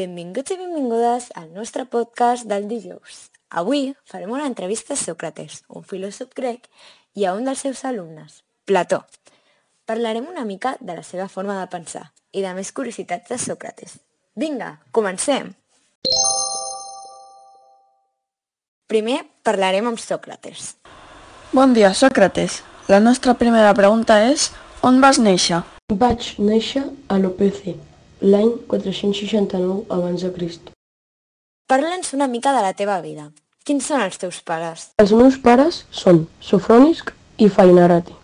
Benvinguts i benvingudes al nostre podcast del dijous. Avui farem una entrevista a Sòcrates, un filòsof grec, i a un dels seus alumnes, Plató. Parlarem una mica de la seva forma de pensar i de més curiositats de Sòcrates. Vinga, comencem! Primer parlarem amb Sòcrates. Bon dia, Sòcrates. La nostra primera pregunta és: on vas néixer? Vaig néixer a Lopece, l'any 469 abans de Crist. Parla'ns una mica de la teva vida. Quins són els teus pares? Els meus pares són Sofrònisc i Fainarati.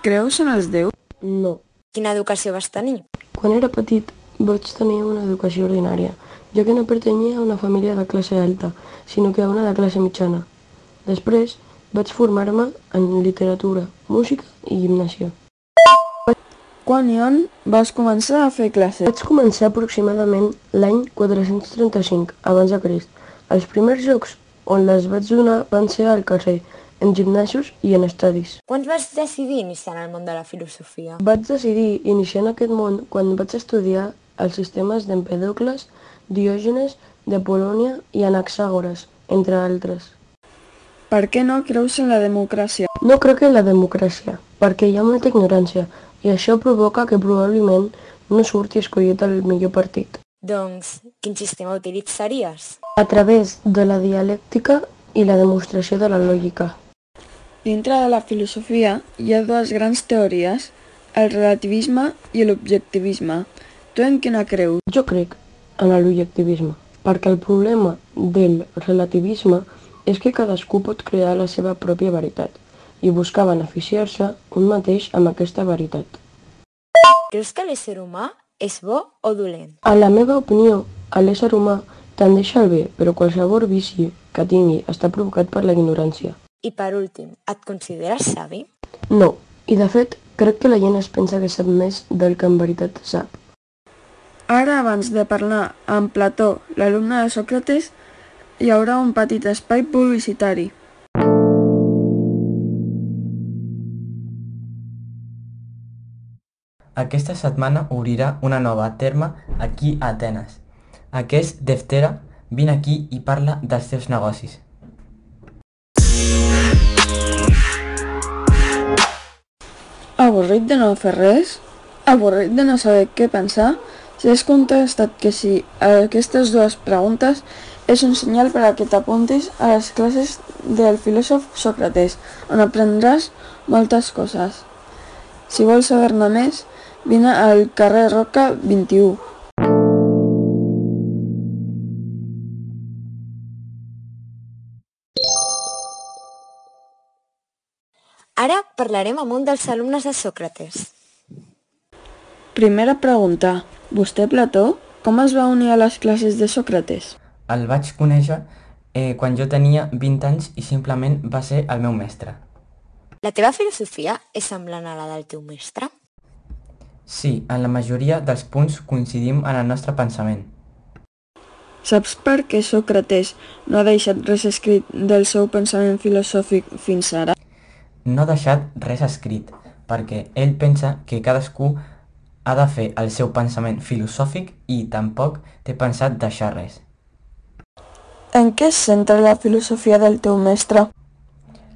Creus en els déus? No. Quina educació vas tenir? Quan era petit vaig tenir una educació ordinària, ja que no pertanyia a una família de classe alta, sinó que a una de classe mitjana. Després vaig formar-me en literatura, música i gimnàsia. Quan i on vas començar a fer classes? Vaig començar aproximadament l'any 435 abans de Crist. Els primers jocs on les vaig donar van ser al carrer, en gimnasos i en estadis. Quan vas decidir iniciar en el món de la filosofia? Vaig decidir iniciar en aquest món quan vaig estudiar els sistemes d'Empèdocles, Diògenes, d'Apol·lònia i Anaxàgores, entre altres. Per què no creus en la democràcia? No crec en la democràcia, perquè hi ha molta ignorància, i això provoca que probablement no surti escollit el millor partit. Doncs, quin sistema utilitzaries? A través de la dialèctica i la demostració de la lògica. Dintre de la filosofia hi ha dues grans teories, el relativisme i l'objectivisme. Tu en quina creus? Jo crec en l'objectivisme, perquè el problema del relativisme és que cadascú pot crear la seva pròpia veritat i buscar beneficiar-se un mateix amb aquesta veritat. Creus que l'ésser humà és bo o dolent? En la meva opinió, l'ésser humà tendeix al bé, però qualsevol vici que tingui està provocat per la ignorància. I per últim, et consideres savi? No, i de fet, crec que la gent es pensa que sap més del que en veritat sap. Ara, abans de parlar amb Plató, l'alumne de Sòcrates, hi haurà un petit espai publicitari. Aquesta setmana obrirà una nova terme aquí a Atenes. Aquest Deftera, vine aquí i parla dels teus negocis. Avorrit de no fer res? Avorrit de no saber què pensar? Si has contestat que sí a aquestes dues preguntes, és un senyal per a que t'apuntis a les classes del filòsof Sòcrates, on aprendràs moltes coses. Si vols saber-ne més, vine al carrer Roca 21. Ara parlarem amb un dels alumnes de Sòcrates. Primera pregunta. Vostè, Plató, com es va unir a les classes de Sòcrates? El vaig conèixer quan jo tenia 20 anys i simplement va ser el meu mestre. La teva filosofia és semblant a la del teu mestre? Sí, en la majoria dels punts coincidim en el nostre pensament. Saps per què Sòcrates no ha deixat res escrit del seu pensament filosòfic fins ara? No ha deixat res escrit, perquè ell pensa que cadascú ha de fer el seu pensament filosòfic i tampoc té pensat deixar res. En què es centra la filosofia del teu mestre?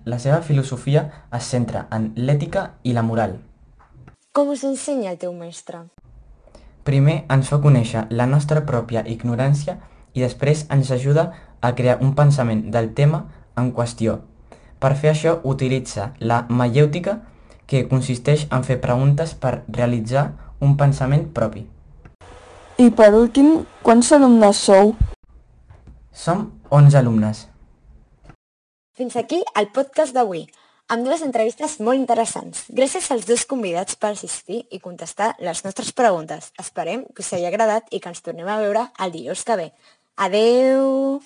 La seva filosofia es centra en l'ètica i la moral. Com us ensenya el teu mestre? Primer ens fa conèixer la nostra pròpia ignorància i després ens ajuda a crear un pensament del tema en qüestió. Per fer això utilitza la maièutica, que consisteix en fer preguntes per realitzar un pensament propi. I per últim, quants alumnes sou? Som 11 alumnes. Fins aquí el podcast d'avui, amb dues entrevistes molt interessants. Gràcies als dos convidats per assistir i contestar les nostres preguntes. Esperem que us hagi agradat i que ens tornem a veure el dijous que ve. Adeu!